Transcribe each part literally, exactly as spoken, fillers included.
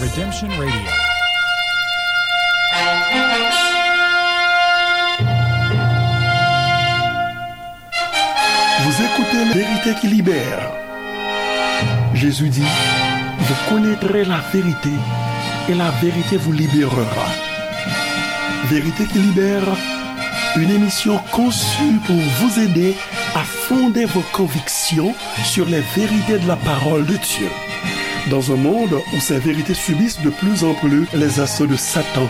Redemption Radio. Vous écoutez La Vérité qui libère. Jésus dit, vous connaîtrez la vérité et la vérité vous libérera. Vérité qui libère, une émission conçue pour vous aider à fonder vos convictions sur les vérités de la parole de Dieu. Dans un monde où ces vérités subissent de plus en plus les assauts de Satan,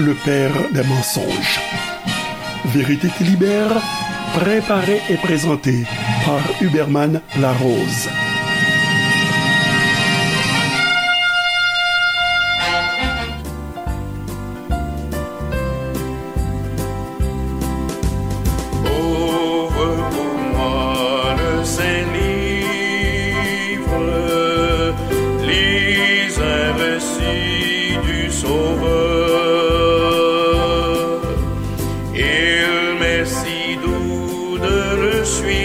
le père des mensonges. Vérité qui libère, préparée et présentée par Huberman Larose. Ouvre pour moi le Saint-Livre, lis un récit du Sauveur. Il m'est si doux de le suivre,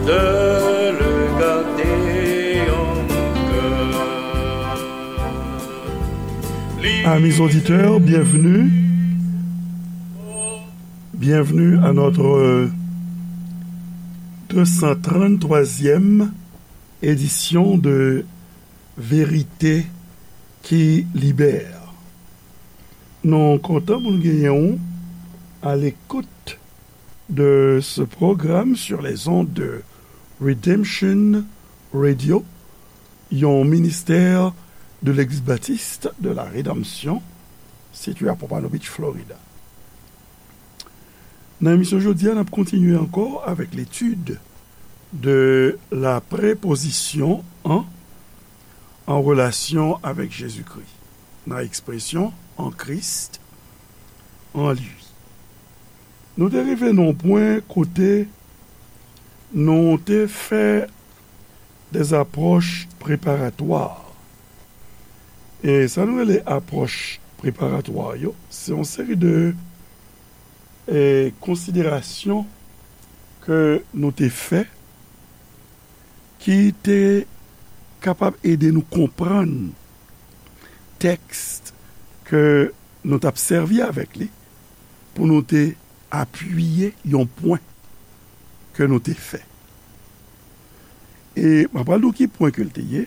de le garder en mon cœur. Amis auditeurs, bienvenue. Bienvenue à notre deux cent trente-troisième édition de Vérité qui libère. Nou kontan pou nou genyen w à l'écoute de ce programme sur les ondes de Redemption Radio, yon ministè de Legliz Batis de la Redanmsyon, sitiye a Pompano Beach, Florida. Nan emisyon jodi a, n ap kontinye ankò avèk l'étude de la préposition en en relation avec Jésus-Christ, nan ekspresyon en Christ, en lui. Nou te rive nan yon pwen kote nou te fè des approches préparatoires. E sa nou rele apwòch preparatwa yo, se yon seri de, e, konsiderasyon ke nou te fè ki te kapab ede nou konprann tèks ke nou t ap sèvi avèk li pou nou te apiye yon pwen ke nou te fè. E m ap pral di w ki pwen ke l te ye,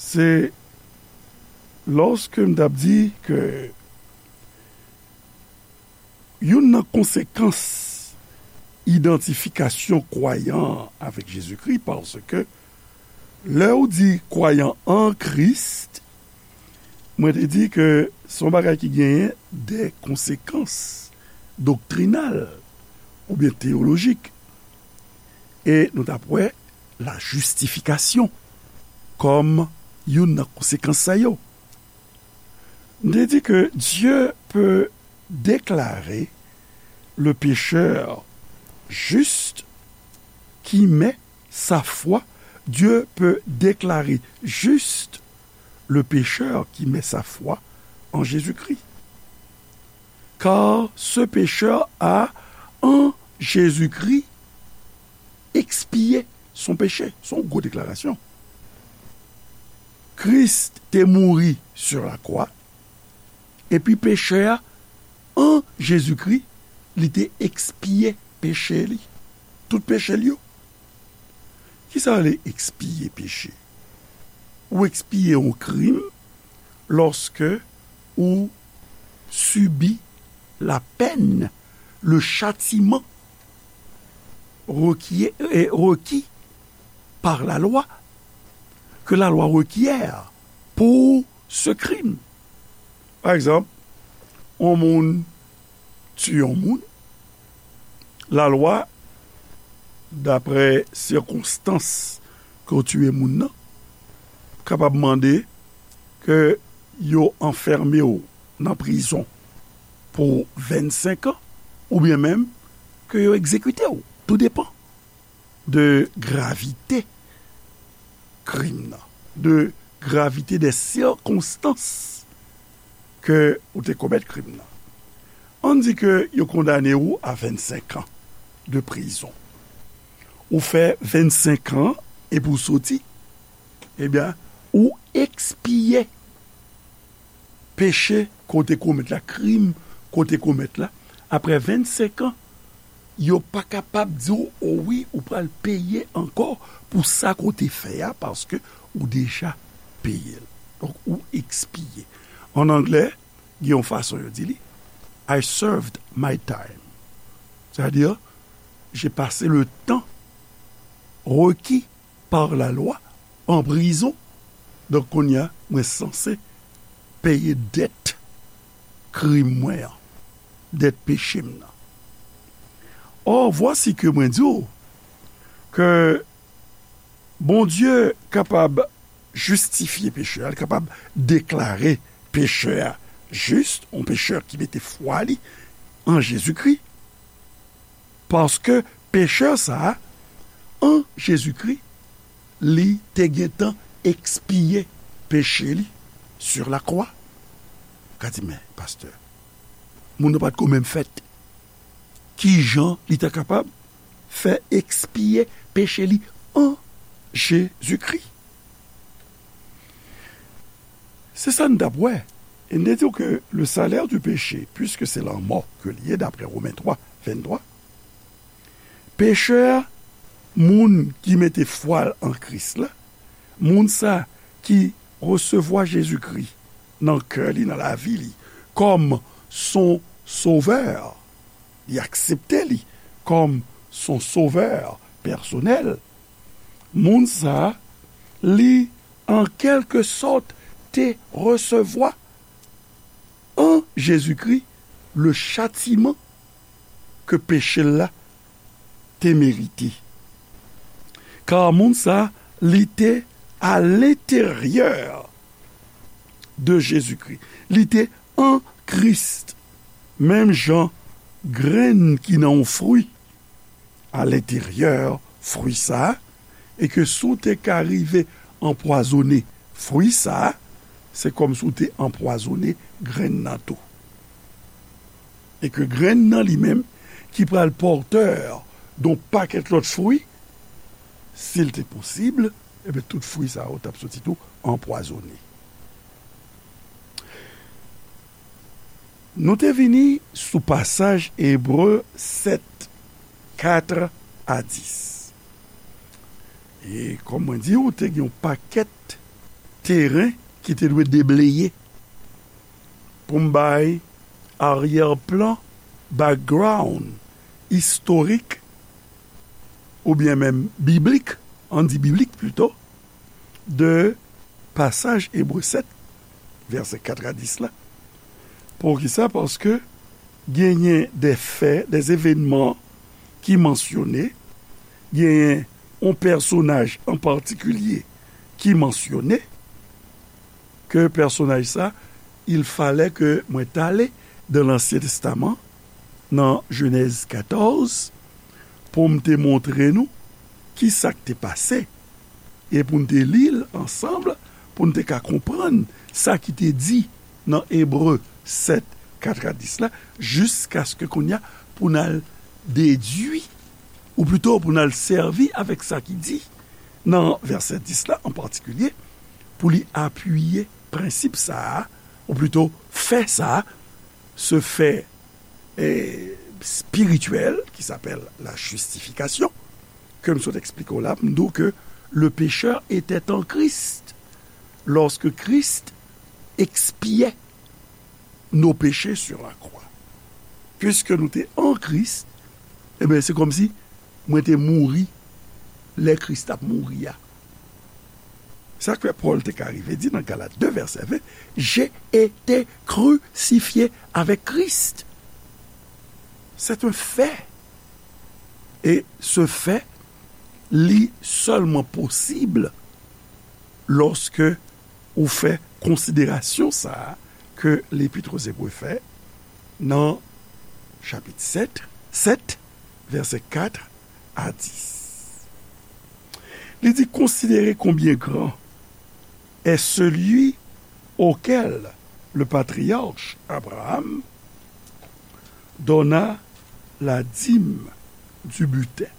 se lòske m t ap di ke youn nan konsekans idantifikasyon kwayan an avèk Jezikri, paske lè w di kwayan an Kris, mwen te di ke se yon bagay ki genyen de konsekans doktrinal oubyen teyolojik. E nou t ap wè la justification kòm youn nan konsekans sa yo. M te di ke Dieu peut déclarer le pécheur juste qui met sa foi, Dieu peut déclarer juste le pécheur qui met sa foi en Jésus-Christ. Car ce pécheur a, en Jésus-Christ, expié son péché. Se yon gwo deklarasyon. Kris te mouri sur la croix, epi pechè a, an Jezikri, li te ekspiye peche li. Tout peche l yo. Kisa rele ekspiye peche? Ou ekspiye yon krim lòske ou sibi la peine, le châtiment requiè-, eh, requis par la loi, que la loi requiert pour ce crime. Pa egzanp, yon moun tiye yon moun, lalwa, daprè sikonstans ke w tiye moun nan, kapab mande ke yo anfème w nan prizon pou vennsenk an, oubyen menm ke yo egzekite w. Tou depann de gravite krim nan, de gravite dè sikonstans ke ou te komèt krim nan. Ann di ke yo kondane w a vennsenk an de prizon. Ou fè vennsenk an epi w soti, ebyen, Ou ekspye peche ke w te komèt la, krim ke w te komèt la, apre vennsenk an, yo pa kapab di w, o wi, ou pral peye ankò pou sa ke w te fè a, paske ou deja peye l. Donk, ou ekspye. An anglè, gen yon fason yo di li, I served my time. Sètadi, j'ai passé le temps requis par la loi en prison. Donk, kounye a, mwen sanse peye dèt krim mwen an, dèt peche m nan. Or, voici que mwen di w ke Bondye kapab jistifye pechè a, li kapab deklare pechè a jis, yon pechè ki mete fwa li an Jezikri, paske pechè sa a, an Jezikri, li te gentan ekspye peche li sur la croix. Ou ka di, men, pastè, moun nan pa t ko menm fèt. Kijan li ta kapab fè ekspye peche li an Jezikri? Se sa n t ap wè. E n te di w ke le salaire du péché, puisque c'est la mort ke li ye, daprè Women twa, venntwa, pechè a, moun ki mete fwa l an Kris la, moun sa ki resevwa Jezikri nan kè li, nan lavi li, kòm son sovè, li aksepte li kòm son sovè pèsonèl, moun sa a, li, an kèlke sòt, te resevwa an Jezikri le chatiman ke peche l la te merite. Ka moun sa a, li te à l'intérieur de Jésus-Christ. Li te an Kris. Menm jan grenn ki nan yon fwi à l'intérieur fwi sa a, e ke si w te ka rive anpwazonnen fwi sa a, se kòmsi w te anpwazonnen grenn nan tou. E ke grenn nan li menm, ki pral pòtè yon pakèt lòt fwi, si l te posib, ebyen, tout fwi sa yo t ap soti tou anpwazonnen. Nou te vini sou pasaj Ebre sèt, kat a dis. E kòm mwen di w, te gen yon pakèt teren ki te dwe debleye pou m bay aryè plan, background istorik, oubyen menm biblik, ann di biblik plito, de pasaj Ebre sèt, vèsè kat a dis la. Poukisa? Paske genyen de fè, de evènman ki mansyone, genyen yon pèsonaj an patikilye ki mansyone, ke pèsonaj sa, il fallait que mwen t ale dans l'Ancien Testament, nan Jenèz katòz, pou m te montre nou ki sa k te pase, e pou n te li l ansanm, pou n te ka konprann sa ki te di nan Ebre sèt, kat a dis la, jiskaske kounye a, pou n al dedui, ou plito pou n al sèvi avèk sa ki di nan vèsè dis la an patikilye, pou li apiye prensip sa a, ou plito fè sa a, se fè, eh, spirityèl, qui s'appelle la justification, ke m sot eksplike w la, m di w ke le pécheur était en Christ lorsque Christ expiait nos péchés sur la croix. Piske nou te an Kris, ebyen, se kòmsi mwen te mouri lè Kris t ap mouri a. Sa k fè Pòl te ka rive di nan Galat de vèsè ven, j'ai été crucifié avec Christ. C'est un fait. Et ce fait, li sèlman posib lòske ou fè konsiderasyon sa a ke Lepit aux Hébreux fè nan chapit sèt, sèt, vèsè kat a dis. Li di, considérez combien grand est celui auquel le patriarche Abraham donna la dîme du butin.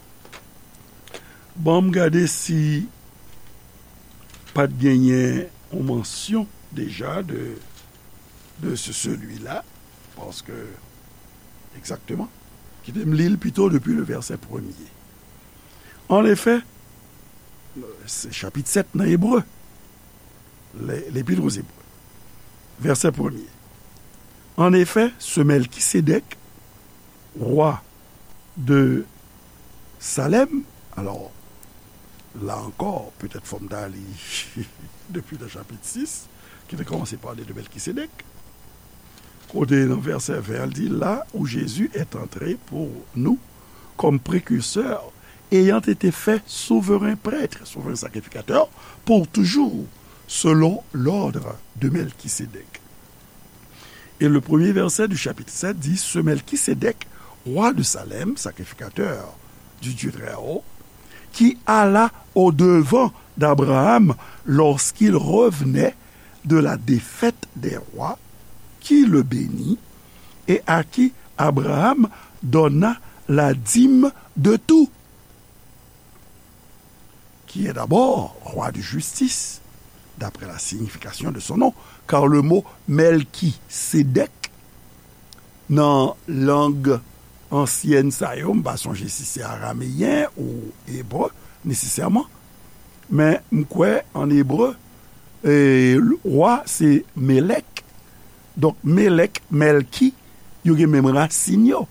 Ban m gade si pa t genyen yon mansyon deja de, de ce celui-là, paske, egzakteman, kite m li l pito depi le vèsè premye. Anefè, se chapit sèt nan Ebre, le- L'Épître aux Hébreux, vèsè premye. Anefè, ce Melchisédek, roi de Salem, alò, la ankò, petèt fò m ta li depi nan chapit sis, ki te kòmanse pale de Melchisédek. Kote nan vèsè ven an, l di, là où Jésus est entré pour nous comme précurseur, ayant été fait souverain prêtre, souverain sacrificateur, pour toujours, selon l'ordre de Melchisédek. Et le premier verset du chapitre sept dit, ce Melchisédek, roi de Salem, sacrificateur du Dieu très haut, qui alla au-devant d'Abraham lorsqu'il revenait de la défaite des rois, qui le bénit et à qui Abraham donna la dîme de tout, qui est d'abord roi de justice, d'après la signification de son nom, car le mot Melchisédek, nan lang ansyèn sa yo, m pa sonje si se arameyen ou ebre nesesèman, men m kwè an ebre, e, wa se Melek. Donk, Melek, Melki, yo gen menm rasin yo.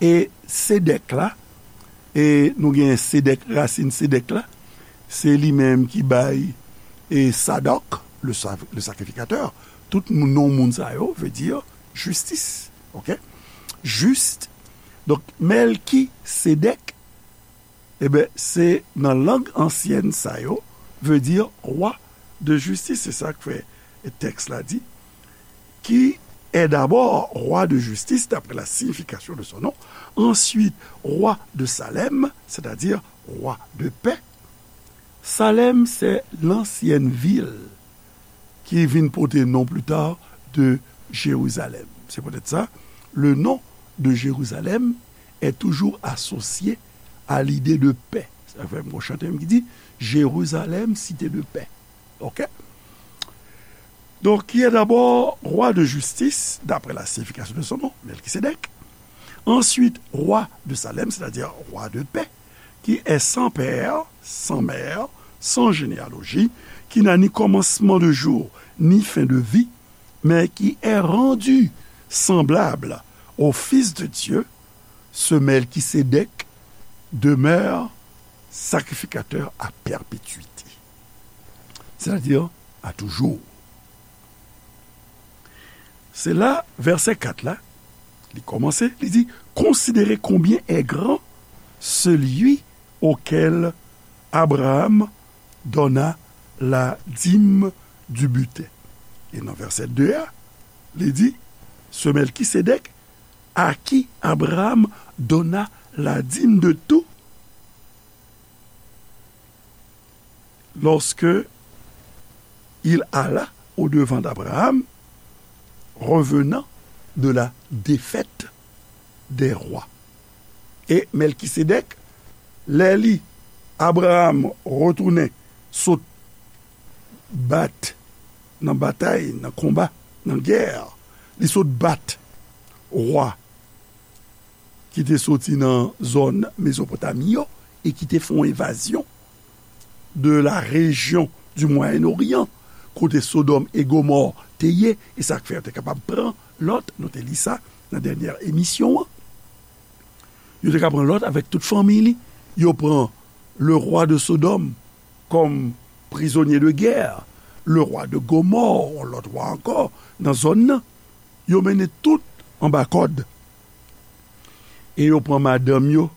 E Sedek la, e nou gen Sedek, rasin Sedek la, se li menm ki bay, e, Sadok, le sa- le sacrificateur. Tout moun, non moun sa yo, vle di jistis. Ok? Jis. Donk, Melkisedek, e ben, se nan lang ansyèn sa yo, vle di roi de justice. Se sa k fè tèks la di, qui est d'abord roi de justice, d'après la signification de son nom, ensuite roi de Salem, c'est-à-dire roi de paix. Salem, c'est l'ancienne ville qui vin pote non plus tard de Jérusalem. C'est peut-être ça, le nom de Jérusalem est toujours associé à l'idée de paix. Sa fè m gon chante m ki di, Jérusalem, cité de paix. Ok? Donc, qui est d'abord roi de justice, d'après la signification de son nom, Melchisédek. Ensuite, roi de Salem, c'est-à-dire roi de paix, qui est sans père, sans mère, sans généalogie, qui n'a ni commencement de jour, ni fin de vie, mais qui est rendu semblable au Fils de Dieu, ce Melchisédek demeure sacrificateur à perpétuité. C'est-à-dire à toujours. Se la, vèsè kat la, li kòmanse, li di, considérez combien est grand celui auquel Abraham donna la dîme du butin. E nan vèsè de a, li di, ce Melchisédek à qui Abraham donna la dîme de tout, lorsque il alla au-devant d'Abraham, revenant de la défaite des rois. E Melkisedèk, lè li, Abraham retounen sot bat nan batay, nan konba, nan gè, li sot bat wa ki te soti nan zòn Mezopotami yo e ki te fè yon envazyon de la région du Moyen-Orient, kote Sodòm e Gomò te ye, e sa k fè yo te kapab pran Lòt, nou te li sa nan dènyè emisyon an. Yo te ka pran Lòt avèk tout fanmi li. Yo pran le roi de Sodome comme prisonnier de guerre, le roi de Gomorrhe, yon lòt wa ankò nan zòn nan. Yo mennen tout anba kòd. E yo pran madanm yo,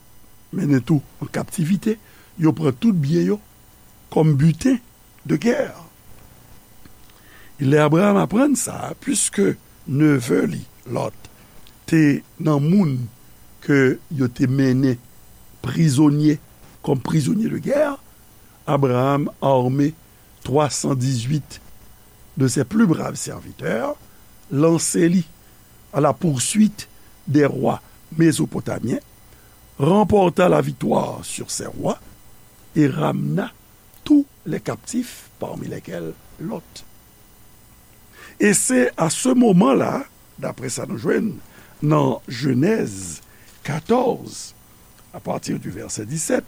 mennen tou an kaptivite. Yo pran tout byen yo kòm biten de gè. Lè Abraham aprann sa, piske neve li, Lòt, te nan moun ke yo te mennen prizonye, kòm prizonye de gè, Abraham arme twa san dizuit de ses plus braves serviteurs, lanse li à la poursuite des rois mésopotamiens, remporta la victoire sur ces rois et ramena tous les captifs parmi lesquels Lot. Et c'est à ce moment-là, d'après sa nou jwenn nan Jenèz katòz, à partir du verset dix-sept,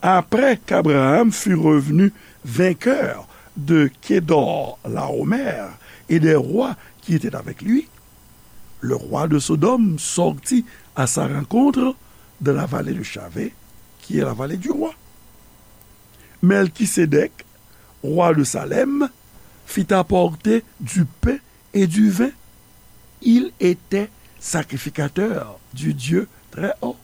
après qu'Abraham fut revenu vainqueur de Kedor-Laomer et des rois qui étaient avec lui, le roi de Sodome sortit à sa rencontre dans la vallée de Shavé, qui est la vallée du roi. Melchisédek, roi de Salem, fit apporter du pain et du vin. Il était sacrificateur du Dieu très haut.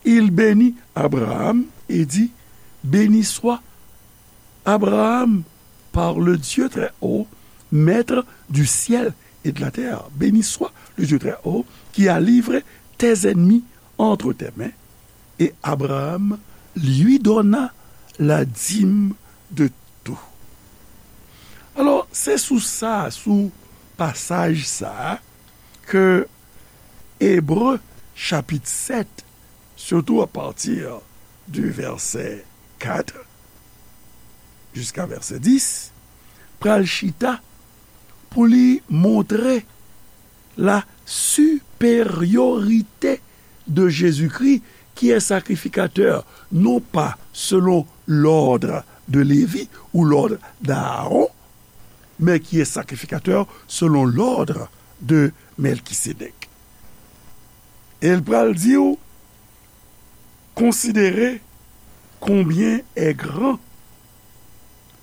Il bénit Abraham et dit, Béni soit Abraham par le Dieu très haut, maître du ciel et de la terre. Béni soit le Dieu très haut qui a livré tes ennemis entre tes mains. Et Abraham lui donna la dîme de tout. Alò, se sou sa, sou pasaj sa, ke Ebre chapit sèt, surtout à partir du verset quatre jusqu'à verset dix, pral chita pou li montre la supériorité de Jésus-Christ, qui est sacrificateur, non pas selon l'ordre de Lévi ou l'ordre d'Aaron, mais qui est sacrificateur selon l'ordre de Melchisédek. E l pral di w, considérez combien est grand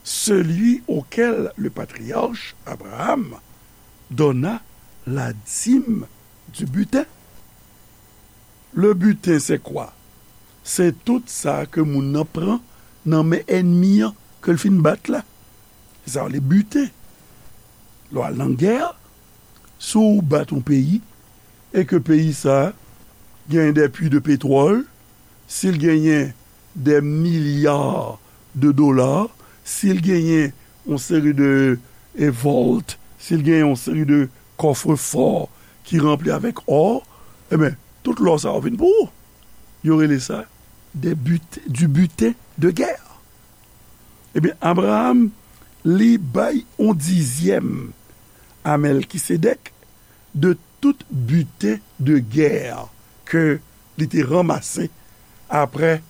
celui auquel le patriarche Abraham donna la dîme du butin. Le butin, c'est quoi? Se tout sa ke moun nan pran nan men ènmi an, ke l fin bat la. Se sa yo rele biten. Lè w al nan gè, si w bat yon peyi, e ke peyi sa a genyen des puits de pétrole, si l genyen des milliards de dollars, si l genyen yon seri de, e, vault, si l genyen yon seri de coffre-fort ki ranpli avèk or, ebyen, tout lò sa yo vin pou ou. Yo rele sa des but-, du butin de guerre. Ebyen, Abraham, li bay yon dizyèm a Mèlkisedèk de tout biten de gè ke li te ranmase apre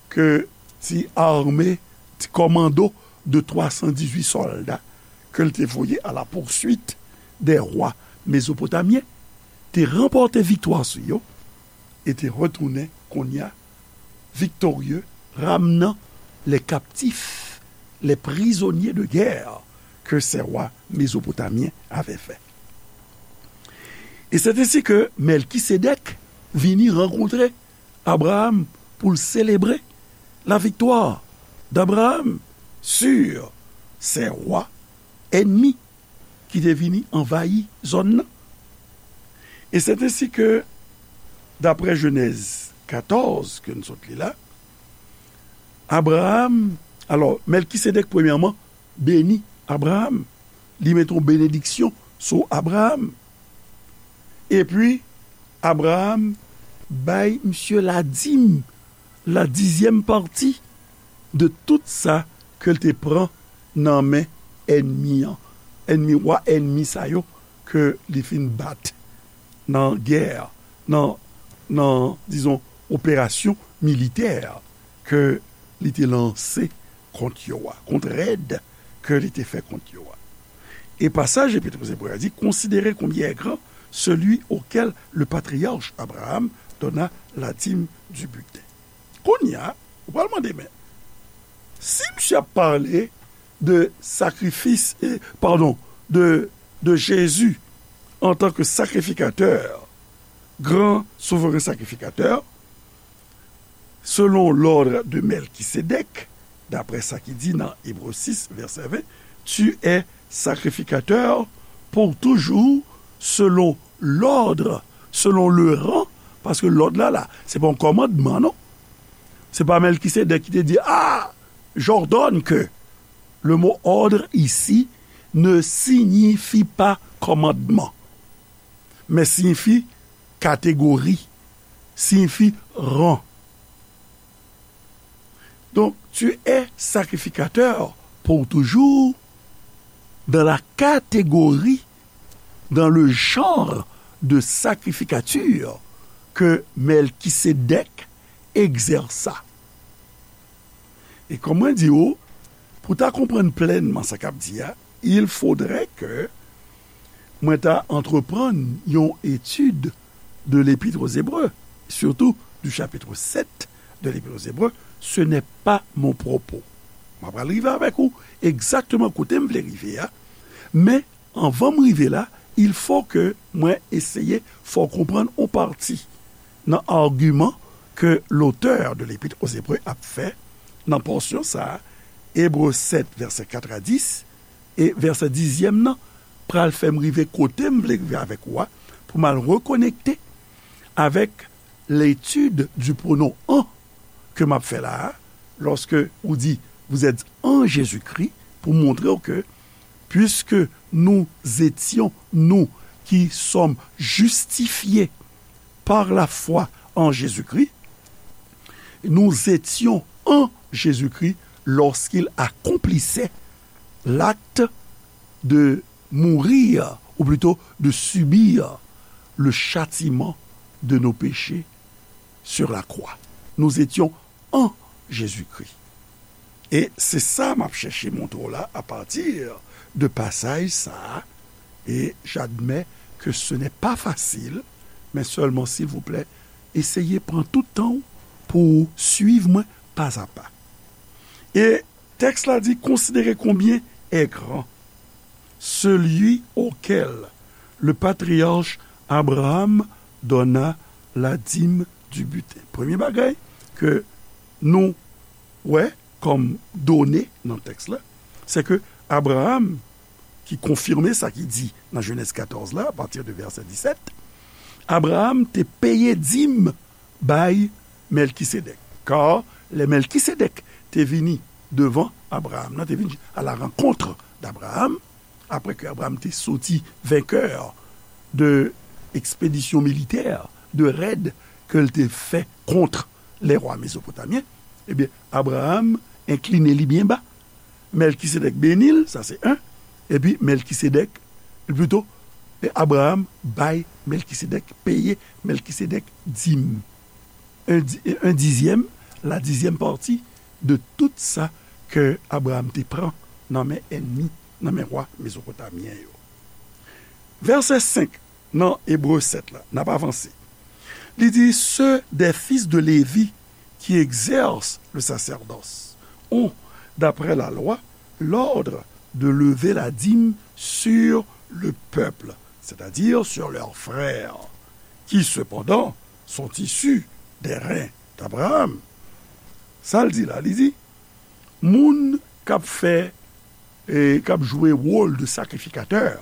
ke ti ame, ti kòmando de twa san dizuit sòlda ke l te voye à la poursuite des rois mésopotamiens, te ranpòte viktwa sou yo e te retounen kounye a victorieux, ramenant les captifs, les prisonniers de guerre que ces rois mésopotamiens avaient fait. Et c'est ainsi que Melchisédek vini rankontre Abraham pou l selebre la victoire d'Abraham sur ces rois ennemis ki te vini anvayi zòn nan. E c'est ainsi que, d'après Genèse quatorze, ke n sot li la, Abraham, alò, Mèlkisedèk, premyèman, beni Abraham. Li mete yon benediksyon sou Abraham. Epi, Abraham bay misye ladim, la dizyèm pati de tout sa ke l te pran nan men ènmi an. Ènmi, wa ènmi sa yo ke li fin bat nan gè, nan, nan, dizon, operasyon militè ke li te lanse kont yo a, kont rèd ke li te fè kont yo a. E pasaj Epit Ebre a di, considérez combien est grand celui auquel le patriarche Abraham donna la dîme du butin. Kounye a, ou pral mande, men, si misye ap pale de sakrifis, e, padon, de, de Jezi antan ke sakrifikatè, gran souvren sakrifikatè, selon l'ordre de Melchisédek, daprè sa ki di nan Ebre sis, vèsè ven, tu es sacrificateur pour toujours selon l'ordre, selon le rang, paske lòd la, la, se pa yon kòmandman, non. Se pa Melchisédek ki te di, ah, j'ordonne que. Le mot ordre ici ne signifie pas commandement, mais signifie catégorie, signifie rang. Donc, tu es sacrificateur pour toujours dans la catégorie, dans le genre de sacrificature que Melchisédek exerça. E kòm mwen di w, pou ta konprann plènman sa k ap di a, il faudrait que mwen ta antreprann yon etid de l'Épître aux Hébreux, surtout du chapitre sept de l'Épître aux Hébreux, ce n'est pas mon propos. Mwen pral rive avèk ou egzakteman kote m vle rive a, men anvan m rive la, il faut que mwen eseye fè w konprann yon pati nan agiman ke l'auteur de l'Épître aux Hébreux ap fè nan pòsyon sa a, Ebre sèt, vèsè kat a dis, e vèsè dizyèm nan pral fè m rive kote m vle rive avèk ou a, pou m al rekonekte avèk l'étude du pronom en ke m ap fè la a, lòske ou di, vous êtes en Jésus-Christ, pou montre w ke, puisque nous étions, nous qui sommes justifiés par la foi en Jésus-Christ, nous étions en Jésus-Christ lorsqu'il accomplissait l'acte de mourir, ou plutôt de subir le châtiment de nos péchés sur la croix. Nous étions en Jésus-Christ. E se sa m ap chèche montre w la apati de pasaj sa a. E j'admets que ce n'est pas facile, men sèlman, silvouplè, eseye pran tout tan w pou w swiv mwen pa a pa. E tèks la di, considérez combien est grand celui auquel le patriarche Abraham donna la dîme du butin. Premye bagay ke nou wè kòm done nan tèks la, se ke Abraham, ki konfime sa ki di nan Jenèz katòz la, apati de vèsè disèt, Abraham te peye dim bay Melkisedèk. Kar lè Melkisedèk te vini devan Abraham, nan te vini à la rencontre d'Abraham, apre ke Abraham te soti venkè de ekspedisyon militè, de rèd ke l te fè kont lè wa mezopotamyen, ebyen, Abraham enkline li byen ba. Melkisedèk beni l, sa se en. Epi Melkisedèk, plito, e Abraham bay Melkisedèk, peye Melkisedèk dim. Un di-, un dixième, la dixième partie de tout sa ke Abraham te pran nan men ènmi, nan men wa mezopotamyen yo. Vèsè senk nan Ebre sèt la, n ap avanse. Li di, ceux des fils de Lévi qui exercent le sacerdoce ont, d'après la loi, l'ordre de lever la dîme sur le peuple, c'est-à-dire sur leurs frères, qui cependant sont issus des reins d'Abraham. Sa l di la, li di, moun k ap fè, e k ap jwe wòl de sakrifikatè,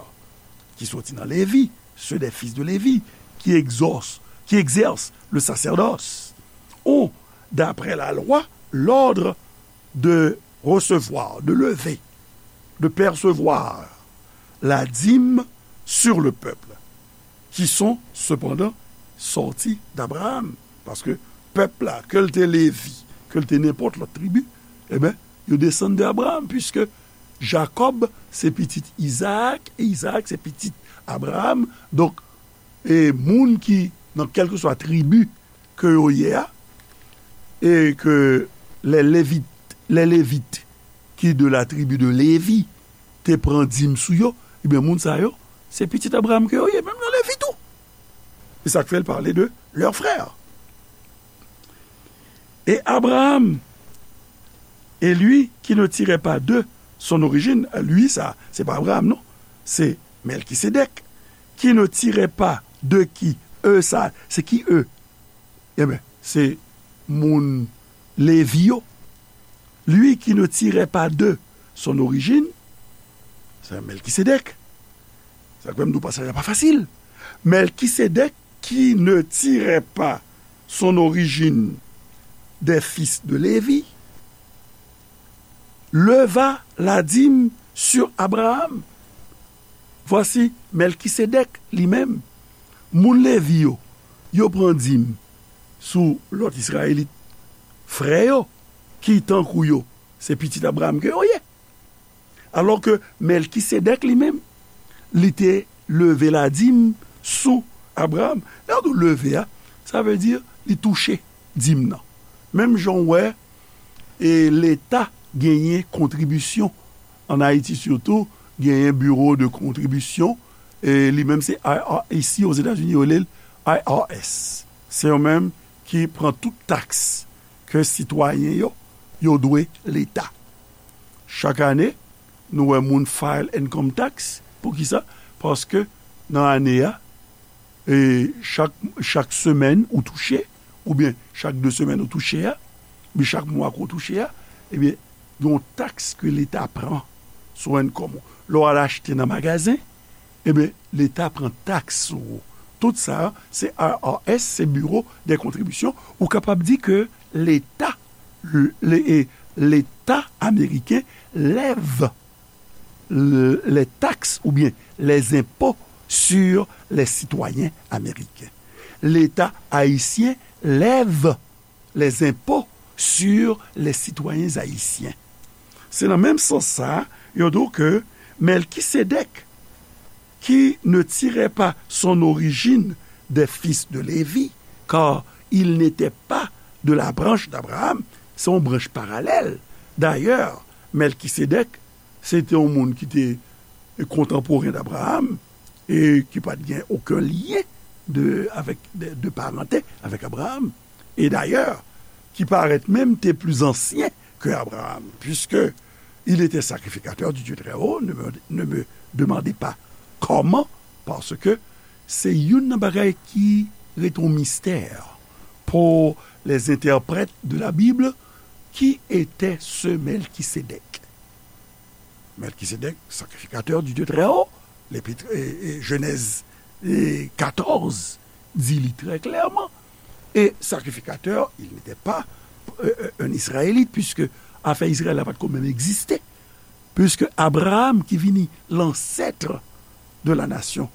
ki soti nan Lévi, ceux des fils de Lévi, qui exaucent, qui exercent le sacerdoce, ont, d'après la loi, l'ordre de recevoir, de lever, de percevoir la dîme sur le peuple, qui sont cependant sortis d'Abraham. Paske pèp la, ke l te Levi, ke l te nenpòt lòt tribi, e ben, yo desann de Abraham, puiske Jakòb se pitit Izaak, e Izaak se pitit Abraham. Donk, e moun ki nan kèlkeswa tribi ke yo ye a, e ke les Lévites, les Lévites qui de la tribu de Lévi te pran dim sou yo, ebyen, moun sa yo, se pitit Abraham ke yo ye, menm nan Levi tou. E sa k fè l pale de leurs frères. Et Abraham, et lui qui ne tirait pas d'eux son origine, lui sa, se pa Abraham, non, se Melkisedèk, qui ne tirait pas de qui, eux sa, se ki eux? Ebyen, se moun Levi yo. Lui qui ne tirait pas d'eux son origine, se Melkisedèk. Sa k fè m di w pasaj la pa fasil. Melkisedèk, qui ne tirait pas son origine des fils de Lévi, leva la dîme sur Abraham. Voici Melkisedèk li menm. Moun Levi yo, yo pran dim sou lòt Izrayelit frè yo, ki tankou yo, se pitit Abraham ke yo ye. Alò ke Mèlkisedèk li menm, li te leve ladim sou Abraram. Lè yo di leve a, sa vle di li touche dim nan. Menm jan w wè, e Leta genyen kontribisyon. Ann Ayiti sitou, genyen Bureau de Contribution, e li menm se I R S, isi Ozetazini, yo rele l I R S. Se yo menm ki pran tout taks ke sitwayen yo, yo dwe Leta. Chak ane, nou wè moun file income tax. Poukisa? Paske nan ane a, e chak, chak semèn ou touche, oubyen chak de semèn ou touche a, oubyen chak mwa ke w touche a, ebyen, gen yon taks ke Leta pran sou income ou. Lè w al achte nan magazen, ebyen, Leta pran taks sou ou. Tout sa, se I R S, se Bureau des Contributions. Ou kapab di ke Leta, le, e, Leta ameriken lève le, les taxes ou bien les impôts sur les citoyens américains. Leta ayisyen lève les impôts sur les citoyens haïtiens. Se nan menm sans sa, yo di w ke Mèlkisedèk, qui ne tirait pas son origine des fils de Lévi, car il n'était pas de la branche d'Abraham, se yon branch paralèl. Dayè, Mèlkisedèk, se te yon moun ki te kontanporen d'Abraham e ki pa t gen okenn lyen de, avèk, de, de parante avèk Abraham. E dayè, ki parèt menm te pli ansyen ke Abraham, puisque il était sacrificateur du Dieu très haut, ne me, ne me demandez pas comment, parce que se youn nan bagay ki rete yon mistè pour les interprètes de la Bible, qui était ce Melchisédek? Melchisédek, sacrificateur du Dieu très haut, l'Épître, e, e, Jenèz, e, katòz, di li trè klèman. E sacrificateur, il n'était pas, e, e, un Israélite, puisque afè Izrayèl la pa t ko menm egziste. Puisque Abraham, ki vini l'ancêtre de la nation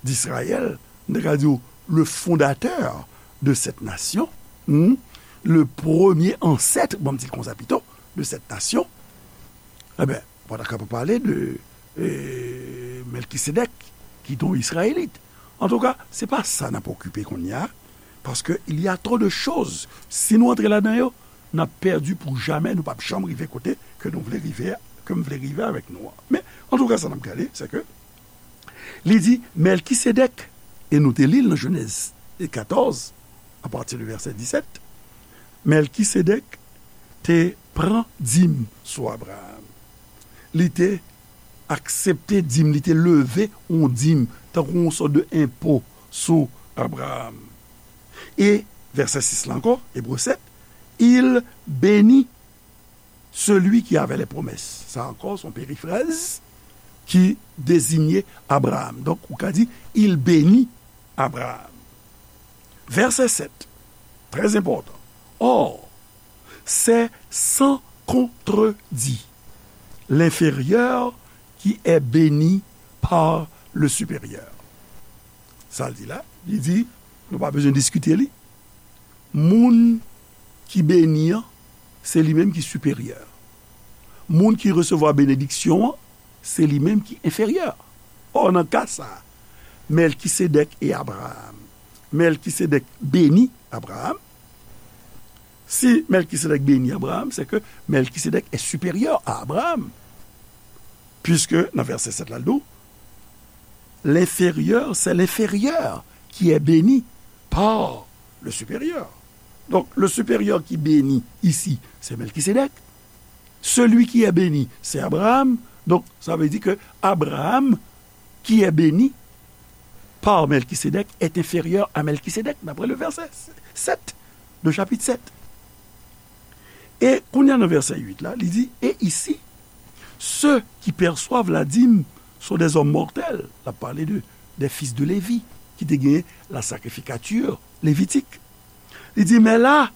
d'Israël, m te ka di w, le fondateur de cette nation, hmm, le premier ancêtre, bon, m di l konsa pito, de cette nation, ebyen, ou pa ta kapab pale de, e, Melkisedèk, ki te yon Izrayelit. Antouka, se pa sa n ap okipe kounye a, paske il y a trop de choses. Si nou antre ladan yo, n ap pèdi pou jamè, nou p ap janm rive kote ke nou vle rive, ke m vle rive avèk nou an. Men, antouka, sa n ap gade, se ke li di, Mèlkisedèk, e nou te li l nan Jenèz katòz, apati de vèsè disèt, Mèlkisedèk te pran dim sou Abraham. Li te aksepte dim, li te leve yon dim, tankou yon sòt de enpo sou Abraham. E vèsè sis la ankò, Ebre sèt, il bénit celui qui avait les promesses. Sa ankò, se yon perifraz ki dezinye Abraham. Donk, ou ka di, il bénit Abraham. Vèsè sèt, très important. Or, c'est sans contredit l'inférieur qui est béni par le supérieur. Sa l di la, li di, nou pa bezwen diskite li. Moun ki beni an, se li menm ki siperyè. Moun ki resevwa benediksyon an, se li menm ki enferyè. Ò, nan ka sa a, Mèlkisedèk e Abraram. Mèlkisedèk beni Abraram. Si Mèlkisedèk beni Abraram, se ke Mèlkisedèk est supérieur à Abraham. Puisque nan vèsè sèt la, l di w, l'inférieur, c'est l'inférieur qui est béni par le supérieur. Donc, le supérieur qui bénit ici, c'est Melchisédek. Celui qui est béni, c'est Abraham. Donc, ça veut dire que Abraham, qui est béni par Melchisédek, est inférieur à Melchisédek, d'après le verset sept de chapitre sept. E kounye a nan vèsè uit la, li di, et ici, ceux qui perçoivent la dîme sont des hommes mortels. L ap pale de, des fils de Lévi, ki te gen la sacrificature lévitique. Li di, mais là,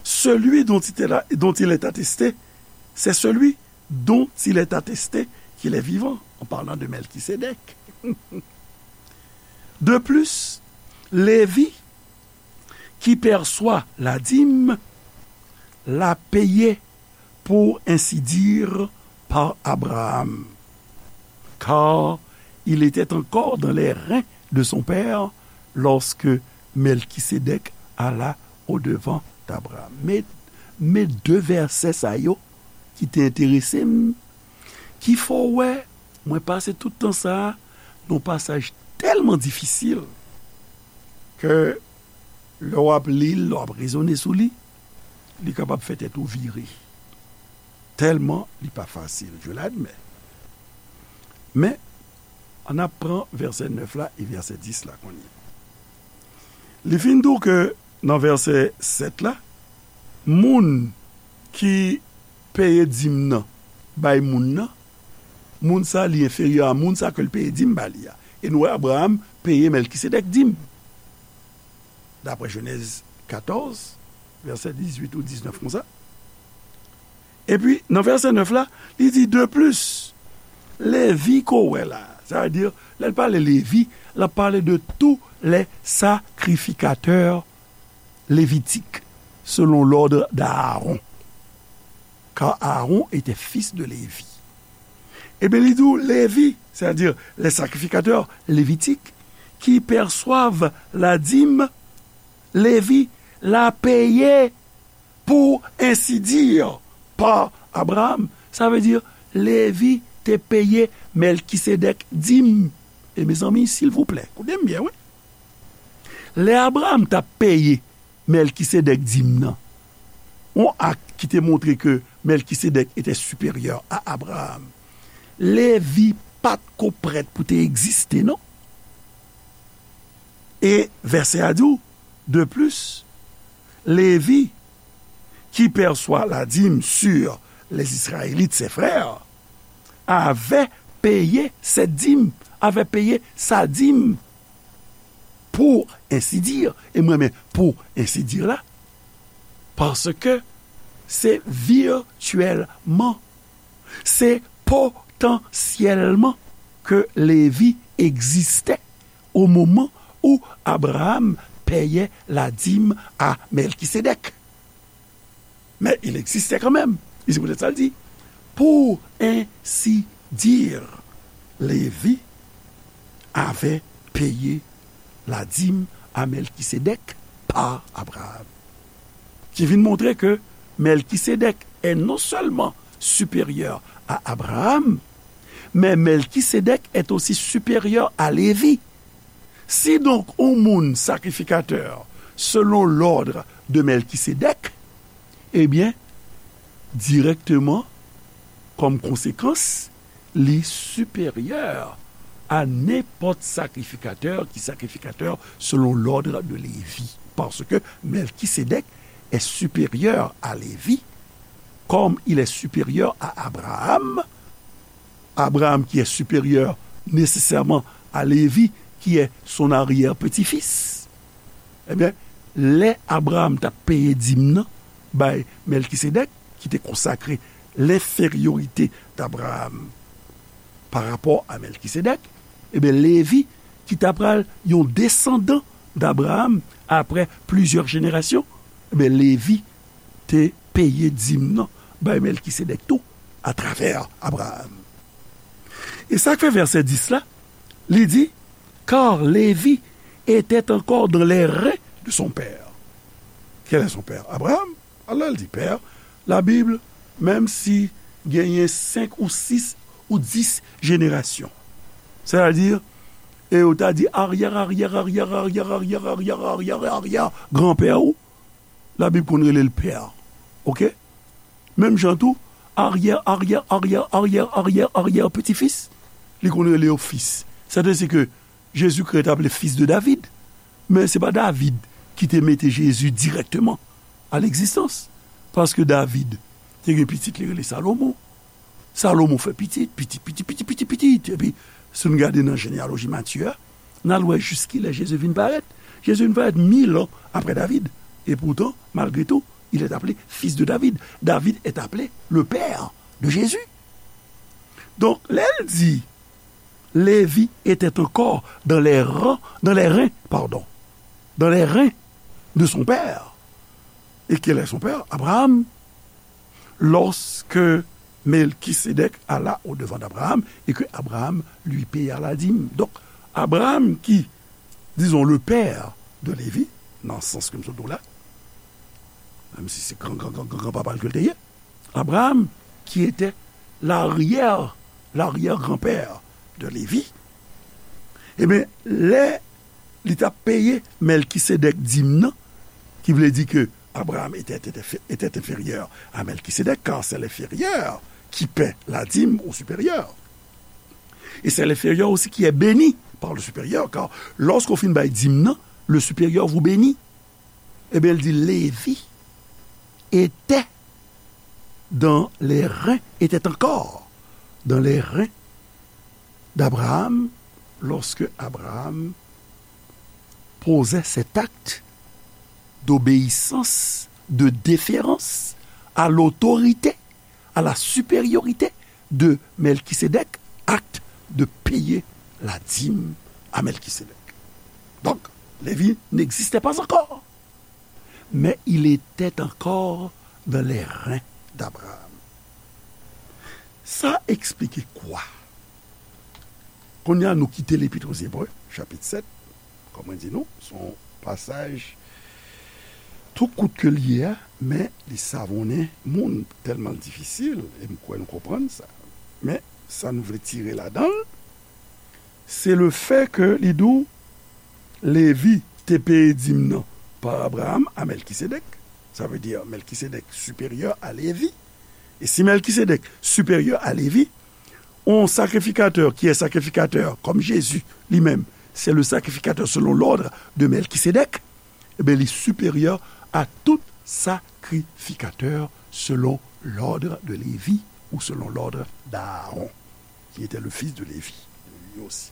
celui dont il est, dont il est attesté, c'est celui dont il est attesté qu'il est vivant, en parlant de Melchisédek. De plus, Lévi, qui perçoit la dîme, l'a payé, pour ainsi dire, par Abraham, car il était encore dans les reins de son père lorsque Melchisédek alla au-devant d'Abraham. Men, men de vèsè sa yo ki te enterese m, ki fè w wè mwen pase tout tan sa a nan yon pasaj tèlman difisil ke lè w ap li l, lè w ap rezone sou li, li kapab fè tèt ou vire. Tèlman li pa fasil, je l'admets. Men, ann ap pran vèsè nèf la e vèsè dis la kounye a. Li fin di w ke nan vèsè sèt la, moun ki peye dim nan bay moun nan, moun sa li enferyè a moun sa ke l peye dim ba li a. E nou wè Abraham peye Melkisedèk dim. Daprè Jenèz katòz, vèsè dizuit ou diznèf konsa. Epi, nan vèsè nèf la, li di, de plis, Levi ke w wè la, sa vle di, lè l pale Levi, l ap pale de tous les sacrificateurs lévitiques, selon l'ordre d'Aaron. Car Aaron était fils de Lévi. Ebyen, li di w, Levi, c'est-à-dire les sacrificateurs lévitiques, qui perçoivent la dîme, Levi la peye, pour ainsi dire, par Abraham. Sa vle di, Levi te peye Melkisedèk dim. E mezanmi, silvouplè, koute m byen, wi. Lè Abraham t ap peye Melkisedèk dim nan, yon ak ki te montre ke Melkisedèk était supérieur à Abraham, Levi pa t ko prèt pou te egziste, non. E vèsè a di w, de plus, Levi, qui perçoit la dîme sur les Israélites, ses frères, avait payé cette dîme, avait payé sa dîme, pour ainsi dire, e m renmen pour ainsi dire la, paske se virtyèlman, se potansyèlman ke Levi egziste au moment où Abraham payait la dîme à Melchisédek. Mais il existait quand même. E se poutèt sa l di, pour ainsi dire, Lévi avait payé la dîme à Melchisédek par Abraham. Ki vin montre ke Melkisedèk est non seulement supérieur à Abraham, mais Melchisédek est aussi supérieur à Lévi. Si donc yon moun sakrifikatè selon l'ordre de Melchisédek, ebyen, dirèkteman, kòm konsekans, li siperyè a nenpòt sakrifikatè ki sakrifikatè selon l'ordre de Lévi. Parce que Melchisédek est supérieur à Lévi, comme il est supérieur à Abraham, Abraham qui est supérieur nécessairement à Lévi, qui est son arrière-petit-fils. Ebyen, lè Abraham t ap peye dim nan bay Melkisedèk, ki te konsakre l'infériorité d'Abraham par rapport à Melkisedèk, ebyen, Levi, ki ta pral yon desandan d'Abraham après plusieurs générations, ebyen, Levi te peye dim nan bay Melkisedèk tou atravè Abraham. E sa k fè vèsè dis la, li di, car Lévi était encore dans les reins de son père. Quel est son père? Abraham. Alò, l di pè, la Bib, menm si genyen senk ou sis ou dis jenerasyon, sètadi, e yo ta di aryè, aryè, aryè, aryè, aryè, aryè, aryè, aryè, aryè, granpè ou, la Bib konn rele l pè. Oke? Menm jan tou, aryè, aryè, aryè, aryè, aryè, aryè peti fis, li konn rele yo fis. Sètadi ke Jezikri t aple fis de David. Men se pa David ki te mete Jezi dirèkteman a legzistans. Paske David te gen pitit li rele Salomon. Salomon fè pitit, pitit, pitit, pitit, pitit, pitit. Epi, si n gade nan jeneyaloji Matye a, n al wè jiskilè Jezi vin parèt. Jezi vin parèt mil an apre David. E poutan, malgre tou, il est appelé fils de David. David est appelé le père de Jésus. Donk, lè l di, Lévi était encore dans les rangs, dans les reins, pardon, dans les reins de son père. Et quel est son père? Abraham. Lorsque Melchisédek alla au-devant d'Abraham et que Abraham lui paya la dîme. Donk, Abraham ki, dizon, le père de Lévi, nan sans ke m sot di w la, menm si se gran, gran, gran, gran, gran papa l ke l te ye, Abraham, qui était l'arrière, l'arrière-grand-père de Lévi, ebyen, lè li t ap peye Melchisédek dim nan, ki vle di ke Abraham était, était, était inférieur à Melchisédek, car c'est l'inférieur qui paie la dîme au supérieur. Et c'est l'inférieur aussi qui est béni par le supérieur, car lorsqu'on fin bay dim nan, le supérieur vous bénit. Eh bien, il dit, Lévi était dans les reins, était encore dans les reins d'Abraham lorsque Abraham posait cet acte d'obéissance, de déférence à l'autorité, à la supériorité de Melchisédek, acte de payer la dîme à Melchisédek. Donc, Lévi n'existait pas encore, mais il était encore dans les reins d'Abraham. Sa eksplike kwa? Kounye a, nou kite Lepit aux Hébreux, chapit sèt. Kòm mwen di nou, se yon pasaj tou kout ke l ye a, men li savonnen moun, tèlman l difisil, e m kwè nou konprann sa. Men, sa nou vle tire ladan l, se le fè ke li di w Lévi te peye dim nan par Abraham à Melchisédek. Ça veut dire Melchisédek supérieur à Lévi. Et si Melchisédek supérieur à Lévi, un sacrificateur qui est sacrificateur, comme Jésus lui-même, c'est le sacrificateur selon l'ordre de Melchisédek, eh bien, il est supérieur à tout sacrificateur selon l'ordre de Lévi ou selon l'ordre d'Aaron, qui était le fils de Lévi, lui aussi.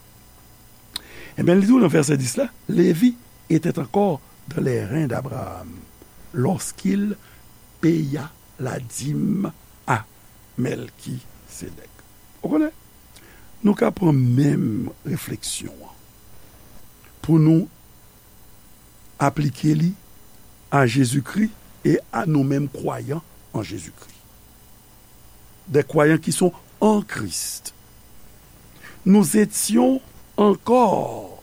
Eh bien, il dit dans verset dix là, Lévi était encore dans les reins d'Abraham lorsqu'il paya la dîme à Melchisédek. Ou konnen, nou ka pran menm refleksyon an pou nou aplike li à Jésus-Christ et à nous-mêmes croyants en Jésus-Christ. Des croyants qui sont en Christ. Nous étions encore,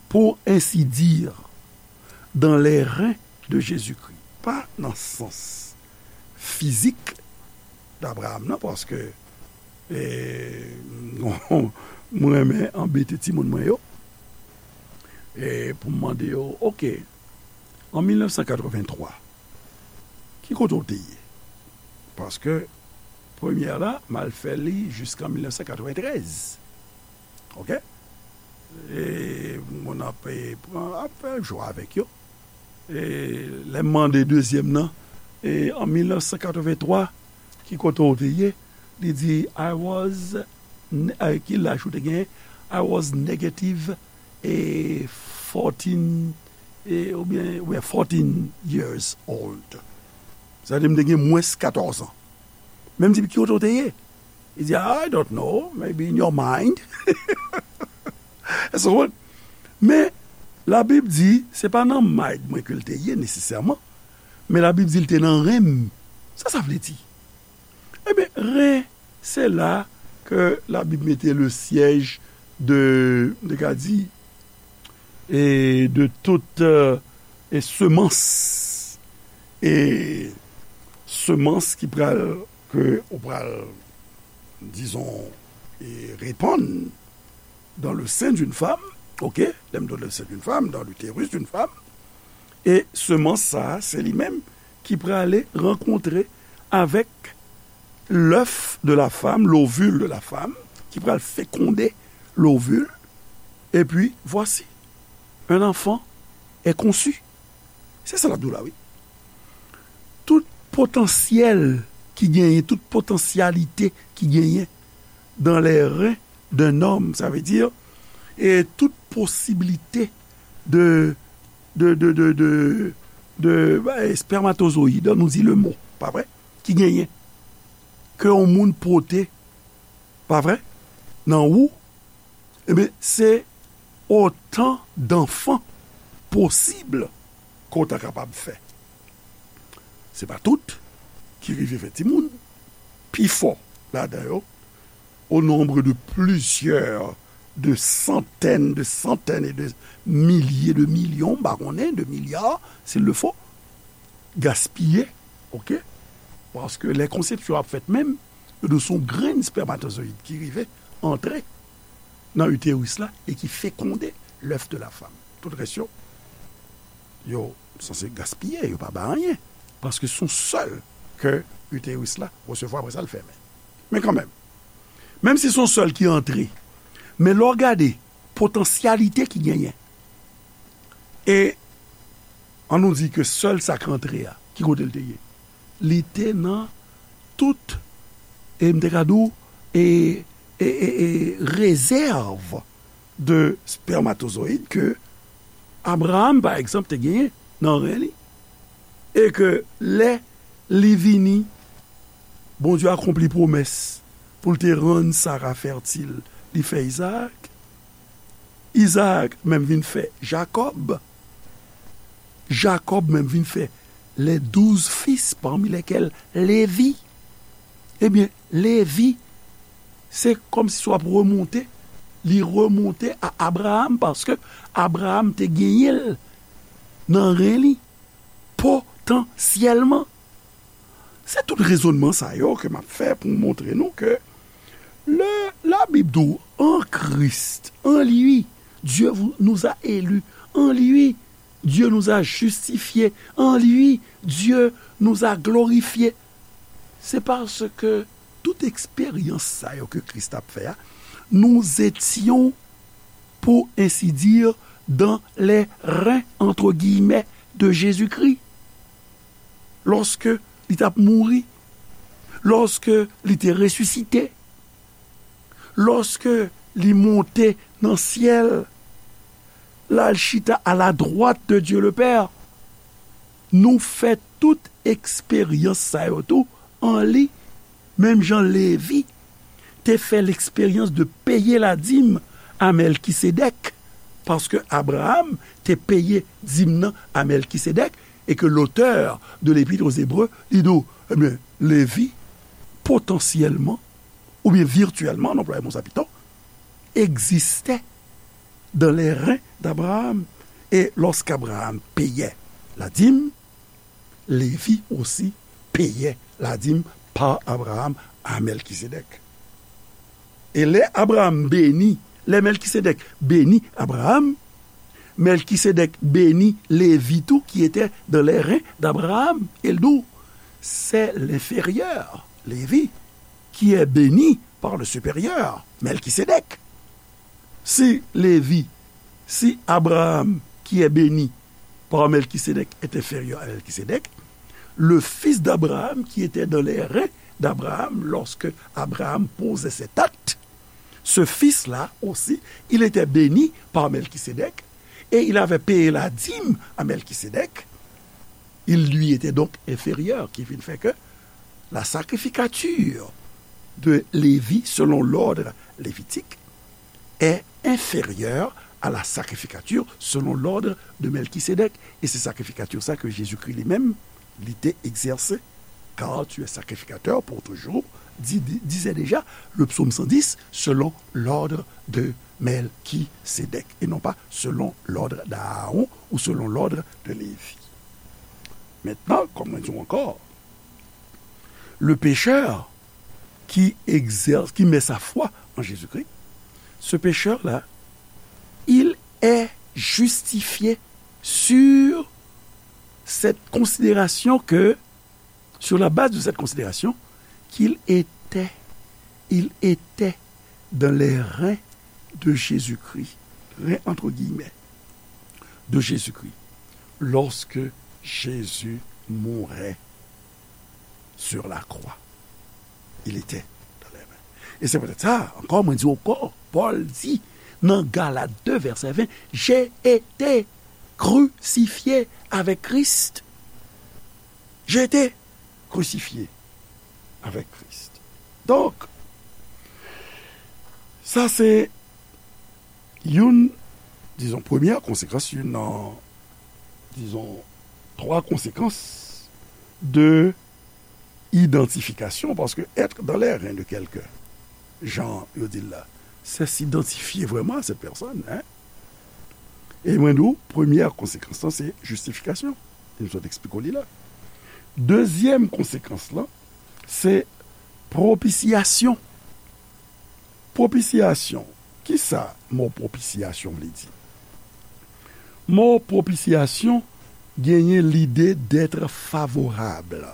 pour ainsi dire, dans les reins de Jésus-Christ. Pa nan sans fizik d'Abraham nan, paske, e, mwen renmen anbete timoun mwen yo, e pou m mande yo, oke, an mil nèf san katrevenntwa, ki kote w te ye? Paske premyè la, m al fè li jiskan mil nèf san katreventrèz. Oke? E moun ap, e, pran, ap fè jwa avèk yo. E lè m mande dezyèm nan, e an mil nèf san katrevenntwa, ki kote w te ye? Li di, I was, ne- eh, ki laj ou te genyen? I was negative, e, fourteen, e, oubyen, oubyen fourteen years old. Sa vle di m te gen mwens katòz an. Men m di, ki kote w te ye? Li di, I don't know, maybe in your mind. Èske w konprann? Men, Labib di, se pa nan mind mwen ke l te ye nesesèman, men Labib di l te nan ren m. Sa sa vle di? Ebyen, ren, se la ke Labib mete le siège de, de ka di, e de tout, euh, e semans, e semans ki pral, ke ou pral, dizon, e repann dans le sein d'une femme, oke, lè m di le sein d'une femme, dans l'utérus d'une femme, e semans sa a, se li menm ki prale rankontre avèk l'œuf de la femme, l'ovule de la femme, ki pral fekonde l'ovule, et puis voici, un enfant est conçu. Se sa l ap di w la, wi. Tout potansyèl ki genyen, tout potansyalite ki genyen dans les reins d'un homme, sa vle di, e tout posiblite de, de, de, de, de, de, e, spermatozoyid, nou di le mo, pa vre, ki genyen, ke yon moun pote, pa vre, nan ou, ebyen, se otan danfan posib ke w ta kapab fè. Se pa tout ki rive fè timoun. Pifò ladan yo, au nombre de plusieurs, de centaines, de centaines et de milliers de millions, m pa konnen, de milliards, s'il le faut, gaspiye, oke? Paske lè konsepsyon ap fèt menm, yo di w se yon grenn spèmatozoyid ki rive antre nan iteris la e ki fekonde l'œuf de la femme. Tout rès yo, yo sanse gaspiye, yo pa bay anyen. Paske se yon sèl ke iteris la resevwa, apre sa l fèmen. Men kanmenm, menm si se yon sèl ki antre, men lè w gade potansyalite ki genyen, e an nou di ke sèl sa k antre a, ki kote l te ye? Li te nan tout, e m te ka di w, e, e, e, e rezèv de spèmatozoyid ke Abraham, pa egzanp, te genyen nan ren li. E ke lè li vini, Bondye akonpli pwomès pou l te rann Sara fètil, li fè Izaak. Izaak menm vin fè Jakòb. Jakòb menm vin fè les douze fils, parmi lesquels Lévi. Ebyen, Lévi, se kòmsi w ap remonte, li remonte a Abraham, paske Abraham te genyen l nan ren li, potansyèlman. Se tout rezònman sa yo ke m ap fè pou montre nou ke lè Labib di w, en Christ, en lui, Dieu vous, nous a élus, en lui, Dieu nous a justifiés, en lui, Dieu nous a glorifiés. Se paske tout eksperyans sa yo ke Kris t ap fè a, nous étions, pour ainsi dire, dans les reins, entre guillemets, de Jésus-Christ. Lòske li t ap mouri, lòske li te resisite, lòske li monte nan syèl, l al chita à la droite de Dieu le Père, nou fè tout eksperyans sa yo tou an li, menm jan Levi te fè l'expérience de payer la dîme à Melchisédek, paske Abraham te peye dim nan a Melchisédek, e ke l'auteur de l'Épître aux Hébreux, li di w, ebyen, Levi, potansyèlman, oubyen virtyèlman, an anplwaye mo sa pito, egziste dans les reins d'Abraham. Et lorsqu'Abraham payait la dîme, Lévi aussi payait la dîme par Abraham à Melchisédek. E lè Abraham beni, lè Melchisédek beni Abraham, Melchisédek beni Lévi tou, qui était dans les reins d'Abraham. E l di w, c'est l'inférieur, Lévi, qui est béni par le supérieur, Melchisédek. Si Lévi, si Abraham, qui est béni par Melchisédek, est inférieur à Melchisédek, le fils d'Abraham, qui était dans les reins d'Abraham lorsque Abraham posait cet acte, ce fils-là aussi, il était béni par Melchisédek et il avait payé la dîme à Melchisédek. Il lui était donc inférieur, qui vient de faire que la sacrificature de Lévi selon l'ordre lévitique est inférieure à la sacrificature selon l'ordre de Melchisédek. E se sakrifikati sa ke Jezikri li menm, li te egzèse. Car tu es sacrificateur pour toujours, di-, di-, disait déjà le psaume cent dix, selon l'ordre de Melchisédek, et non pas selon l'ordre d'Aaron ou selon l'ordre de Lévi. Maintenant, comme on dit encore, le pécheur qui exerce, qui met sa foi en Jésus-Christ, ce pécheur-là, il est justifié sur cette considération que, sur la base de cette considération, qu'il était, il était dans les reins de Jésus-Christ, reins entre guillemets, de Jésus-Christ, lorsque Jésus mourait sur la croix. Il était dans les mains. E se poutèt sa, ankò, mwen di ankò, Pòl di nan Galat de vèsè ven, j'ai été crucifié avec Christ. J'ai été crucifié avec Christ. Donk, sa se youn, dizon, premyè konsekans, youn nan, dizon, twa konsekans de Identification, parce que être dans les reins de quelqu'un, jan yo di l la, c'est s'identifier vraiment à cette personne, hein. E mwen di w, premyè konsekans lan, se jistifikasyon. E m sot eksplike w li la. Dezyèm konsekans lan, se pwopisyasyon. Pwopisyasyon. Kisa mo pwopisyasyon vle di? Mo pwopisyasyon genyen lide d'être favorable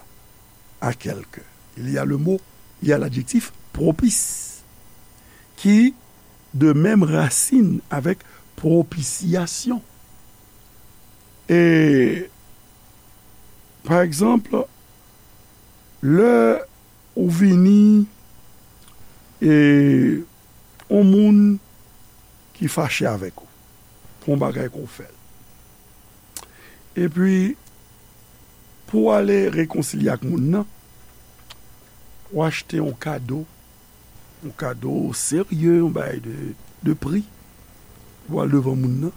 à quelqu'un. Il y a le mot, il y a l'adjectif propice, qui de même racine avec propitiation. E, pa egzanp, lè ou vini, e, yon moun ki fache avèk ou pou yon bagay ke w fè l. Epi, pou w ale rekonsilye ak moun nan, ou achte yon kado, yon kado serye, yon bagay de, de pri, pou w al devan moun nan.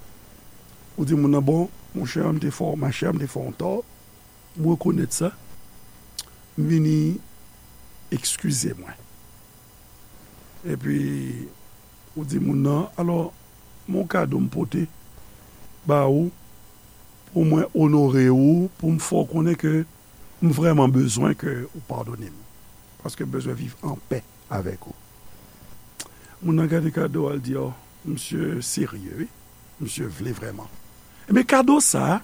Ou di moun nan, bon, monchè, m te fè w, machè, m te fè w yon tò, m rekonèt sa, m vini eskize mwen. Epi, ou di moun nan, alò, m gen yon kado m pote ba ou, pou mwen onore ou, pou m fè w konnen ke m vrèman bezwen ke ou padone m. Paske m bezwen viv an pè avèk ou. Moun nan gade kado a, l di, o, misye serye, wi. Misye vle vrèman. Ebyen, kado sa a,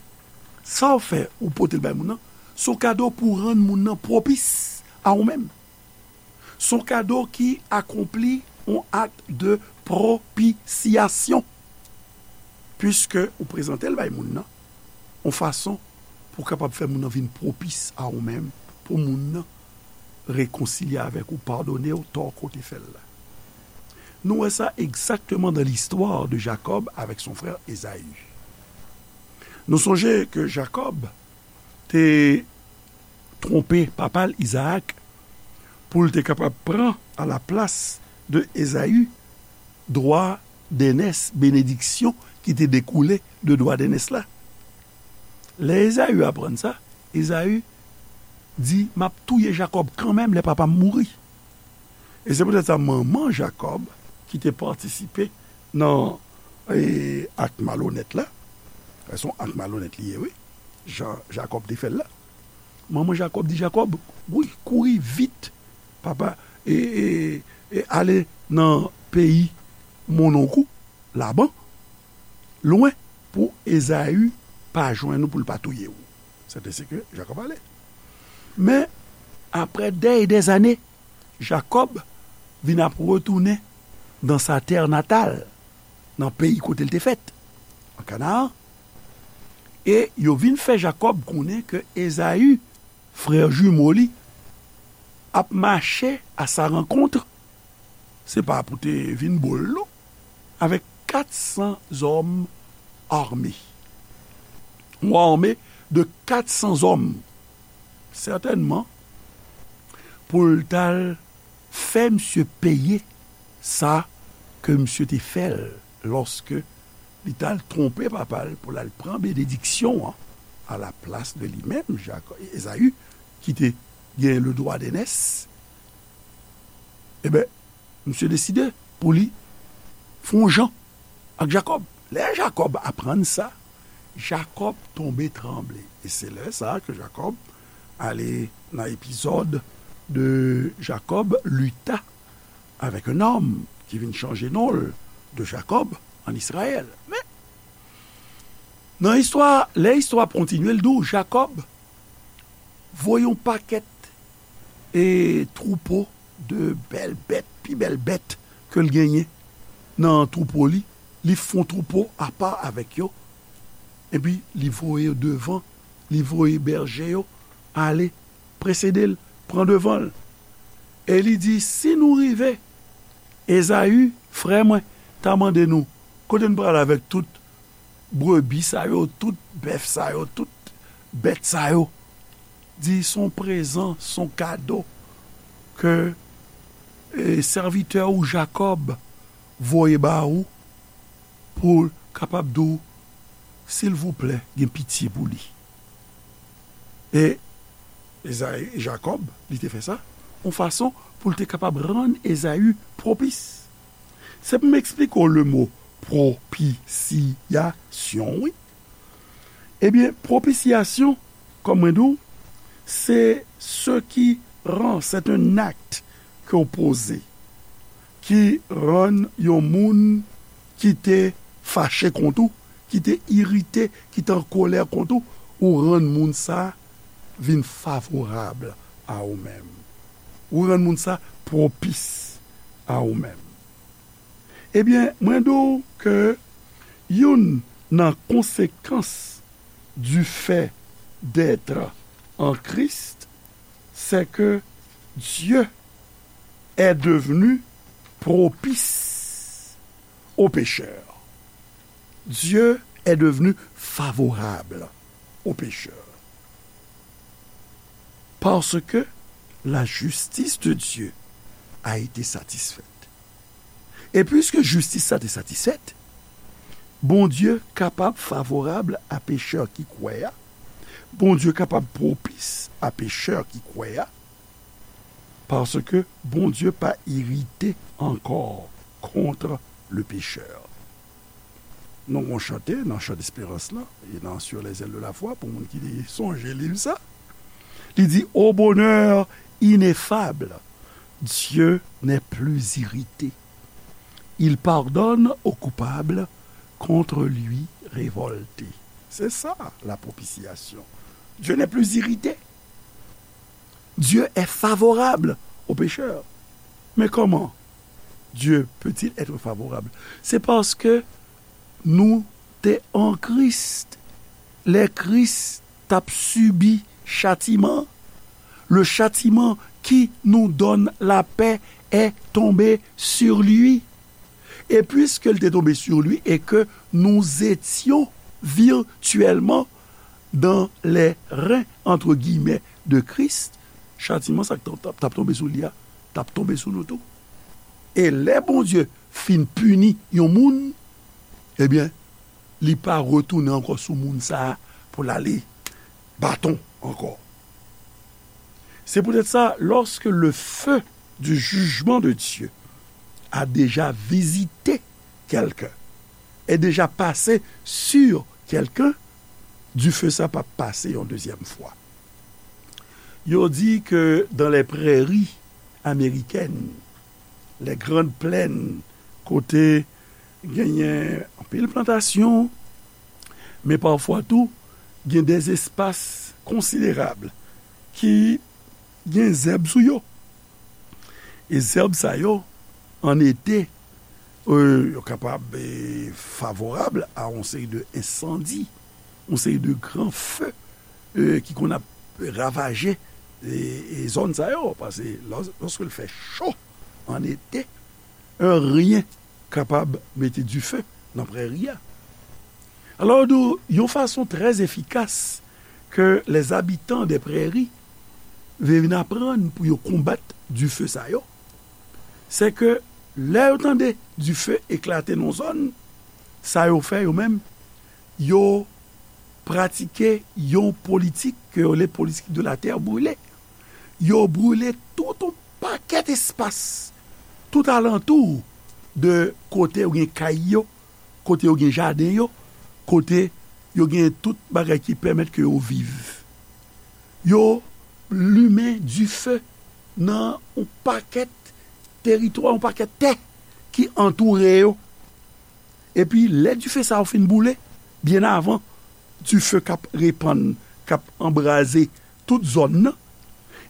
sa w fè, ou pote l bay moun nan, se yon kado pou rann moun nan pwopis a ou menm. Se yon kado ki akonpli yon acte de propitiation, puiske ou prezante l bay moun nan, yon fason pou w kapab fè moun nan vin pwopis a ou menm, pou moun nan rekonsilye avèk ou, padone w tò ke w te fè l la. Nou wè sa egzakteman dans l'histoire de Jacob avec son frère Ésaü. Nou sonje ke Jakòb te twonpe papa l Izaak pou l te kapab pran a la plas de Ezaü dwa dènès, benediksyon ki te dekoule de dwa dènès la. Lè Ezaü aprann sa, Ezaü di, "M ap touye Jakòb kanmenm lè papa m mouri." E se poutèt sa manman Jakòb, ki te patisipe nan, e, ak malonèt la, se yon ak malonèt li ye, wi, jan Jakòb te fè l la. Manman Jakòb di Jakòb, "Wi, kouri vit, papa, e, e, e ale nan peyi monnonk ou, Laban, lwen, pou Ezaü pa jwenn ou, pou l pa touye w." Sètensèten Jakòb ale. Men, apre dè e dè zane, Jakòb vin ap retounen dans sa terre natale, nan peyi kote l te fèt, an Kanaan. E yo vin fè Jakòb konnen ke Ezaü, frè jimo li, ap mache à sa rencontre, se pa pou te vin bo l non, avèk kat san zòm ame. Yon ame de kat san zòm, sètènman, pou l t al fè misye peye sa ke misye te fè l lòske li t al twonpe papa l pou l al pran benediksyon an a la plas de li menm, Jakò-, Ezaü, ki te gen le dwa dènès. Ebyen, misye deside pou li fè yon jan ak Jakòb. Lè Jakòb aprann sa, Jakòb tonbe tranble. E se lè sa a ke Jakòb ale nan epizòd de Jacob lutta avec un homme ki vin chanje non l de Jakòb an Izrayèl. Men, nan istwa, lè istwa ap kontinye, l di w Jakòb voye yon pakèt e twoupo de bèl bèt, pi bèl bèt ke l genyen nan twoupo li, li fè yon twoupo apa avèk yo, epi li voye yo devan, li voye bèje yo ale, presede l, pran devan l. E li di, "Si nou rive, Ezaü, frè mwen, ta mande nou, kote n prale avèk tout brebi sa yo, tout bèf sa yo, tout bèt sa yo?" Di, "Se yon prezan, se yon kado ke, e, sèvitè ou Jakòb voye ba ou pou l kapab di w, silvouplè, gen pitye pou li." E Ezayi, Jakòb, li te fè sa, yon fason pou l te kapab rann Ezayi pwopis. Se pou m eksplike w le mo pwopisyasyon, wi. Ebyen, pwopisyasyon, kòm mwen di w, se ce qui rend, c'est un acte ke w poze, ki rann yon moun ki te fache kont ou, ki te irite, ki te an kolè kont ou, ou rann moun sa vin favorab a ou menm. Ou rann moun sa pwopis a ou menm. Ebyen, mwen di w ke youn nan konsekans du fait d'être en Christ, c'est que Dieu est devenu propice aux pécheurs. Dieu est devenu favorable aux pécheurs. Parce que la justice de Dieu a été satisfaite. E piske jistis sa te satisfèt, Bondye kapab favorab a pechè ki kwè a. Bondye kapab pwopis a pechè ki kwè a. Paske Bondye pa irite ankò kont le pécheur. Nou gon chante nan chan desperans lan, e nan Sur les ailes de la foi, pou moun ki sonje liv sa. Li di, au bonheur ineffable, Dieu n'est plus irrité. Il pardonne au coupable contre lui révolté. C'est ça, la propitiation. Dieu n'est plus irrité. Dieu est favorable aux pécheurs. Mais comment Dieu peut-il être favorable? C'est parce que nou te an Kris. Lè Kris t ap sibi chatiman, le châtiment qui nous donne la paix est tombé sur lui. Et puisqu'il était tombé sur lui et que nous étions virtuellement dans les reins, entre guillemets, de Christ, chatiman sa k t ap tonbe sou li a, t ap tonbe sou nou tou. E lè Bondye fin pini yon moun, ebyen, li pa retounen ankò sou moun sa a pou l ale baton ankò. C'est peut-être ça, lorsque le feu du jugement de Dieu a déjà visité quelqu'un, est déjà passé sur quelqu'un, dife sa p ap pase yon dezyèm fwa. Yo di ke dans les prairies américaines, les grandes plaines, kote genyen anpil plantasyon, men pafwa tou, gen des espaces considérables ki gen zèb sou yo. E zèb sa yo, an ete, e, yo kapab, e, favorab a yon seri de ensandi, yon seri de gran fe, e, ki konn ap ravaje, e, e, zòn sa yo. Paske lòs-, lòske l fè cho an ete, anyen kapab mete dife nan prèri a. Alò, nou, yon fason trè efikas ke les habitants des prairies vin aprann pou yo konbat dife sa yo, se ke lè yo tande dife eklate nan zòn, sa yo fè yo menm, yo pratike yon politik ke yo rele politik de la terre brûlée. Yo brile tout yon pakèt espas tout alantou de kote yo gen kay yo, kote yo gen jaden yo, kote yo gen tout bagay ki pèmèt ke yo viv. Yo limen dife nan yon pakèt teritwa, yon pakèt tè ki antoure yo. Epi, lè dife sa yo fin boule, byen avan dife k ap repann, k ap anbraze tout zòn nan,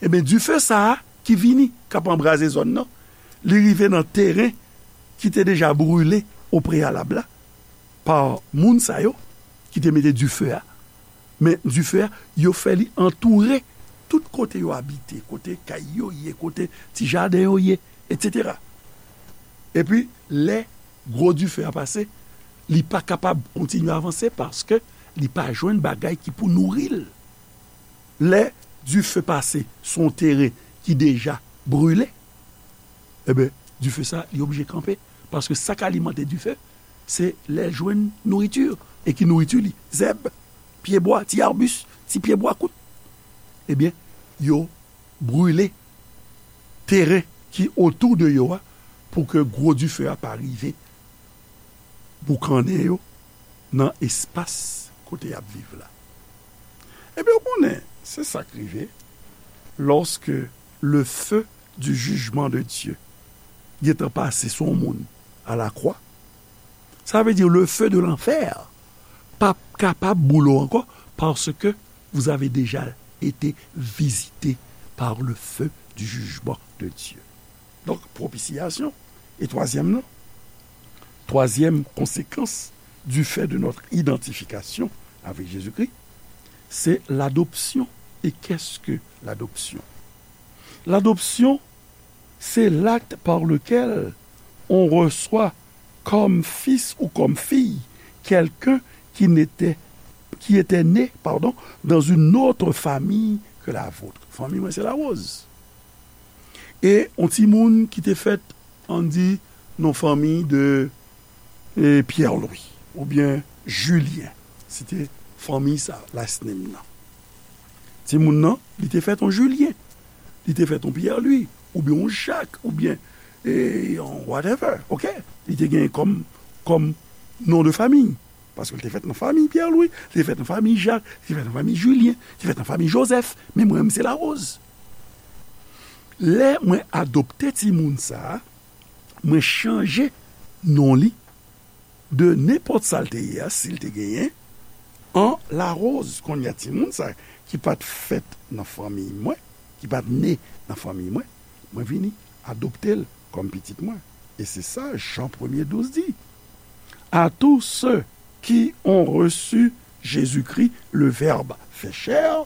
ebyen, dife sa a ki vini, k ap anbraze zòn nan, li rive nan teren ki te deja brile opreyalab la pa moun sa yo ki te mete dife a. Men dife a, yo fè li antoure tout kote yo abite, kote kay yo ye, kote ti jaden yo ye, etsetera. Epi, lè gwo dife a pase, li pa kapab kontinye avanse paske li pa jwenn bagay ki pou nouri l. Lè dife pase sou yon teren ki deja brile, ebyen, dife sa, li oblije kanpe. Paske sa k alimante dife, se lè l jwenn nouriti. E ki nouriti li? Zèb, pyebwa, ti arbis, ti pyebwa kout. Ebyen, yo brile teren ki otou de yo a, pou ke gwo dife a pa rive boukannen yo nan espas kote y ap viv la. Ebyen, ou konnen, se sa k rive lòske le feu du jugement de Dieu gentan pase sou yon moun a la croix. Sa vle di le feu de l'enfer p ap kapab boule w ankò, paske vous avez déjà été visité par le feu du jugement de Dieu. Donk, pwopisyasyon. E twazyèm nan, twazyèm konsekans du fait de notre identification avec Jésus-Christ, c'est l'adoption. Et qu'est-ce que l'adoption? L'adoption, c'est l'acte par lequel on reçoit comme fils ou comme fille quelqu'un qui n'était, qui était né, pardon, dans une autre famille que la vôtre. Fanmi mwen se Larose. E yon timoun ki te fèt, ann di, nan fanmi de, e, Pierre Louis oubyen Julien. Se te fanmi sa, last name nan. Timoun nan, li te fèt yon Julien, li te fèt yon Pierre Louis, oubyen yon Jacques, oubyen, e, yon whatever, oke? Li te gen kòm, kòm non de fanmi. Paske l te fèt nan fanmi Pierre Louis, li te fèt nan fanmi Jacques, li te fèt nan fanmi Julien, li te fèt nan fanmi Joseph, men mwen menm se Larose. Lè mwen adopte timoun sa a, mwen chanje non li de nenpòt sa l te ye a, si l te genyen, an Larose. Kounye a timoun sa a ki pa t fèt nan fanmi mwen, ki pa t ne nan fanmi mwen, mwen vini adopte l kòm pitit mwen. E se sa Jan premye douz di. À tous ceux qui ont reçu Jésus-Christ, le Verbe fait chair,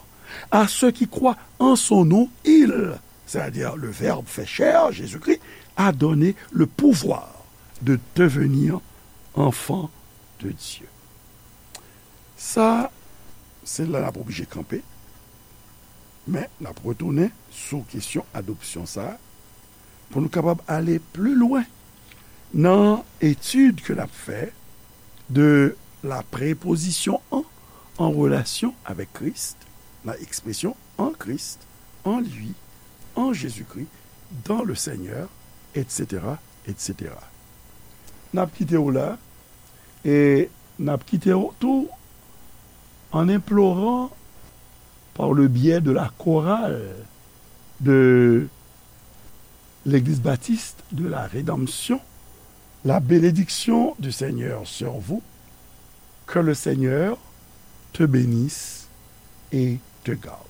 à ceux qui croient en son nom, il, c'est-à-dire le Verbe fait chair, Jésus-Christ, a donné le pouvoir de devenir enfants de Dieu. Sa, se la n ap oblije kanpe, men n ap retounen sou kesyon adopsyon sa a, pou nou kapab ale pli lwen nan etid ke n ap fè de la préposition en, en relation avec Christ, nan ekspresyon en Christ, en lui, en Jésus-Christ, dans le Seigneur, et cetera, et cetera. N ap kite w la, e n ap kite w tou en implorant par le biais de la chorale de l'Église baptiste de la Rédemption, la bénédiction du Seigneur sur vous, que le Seigneur te bénisse et te garde.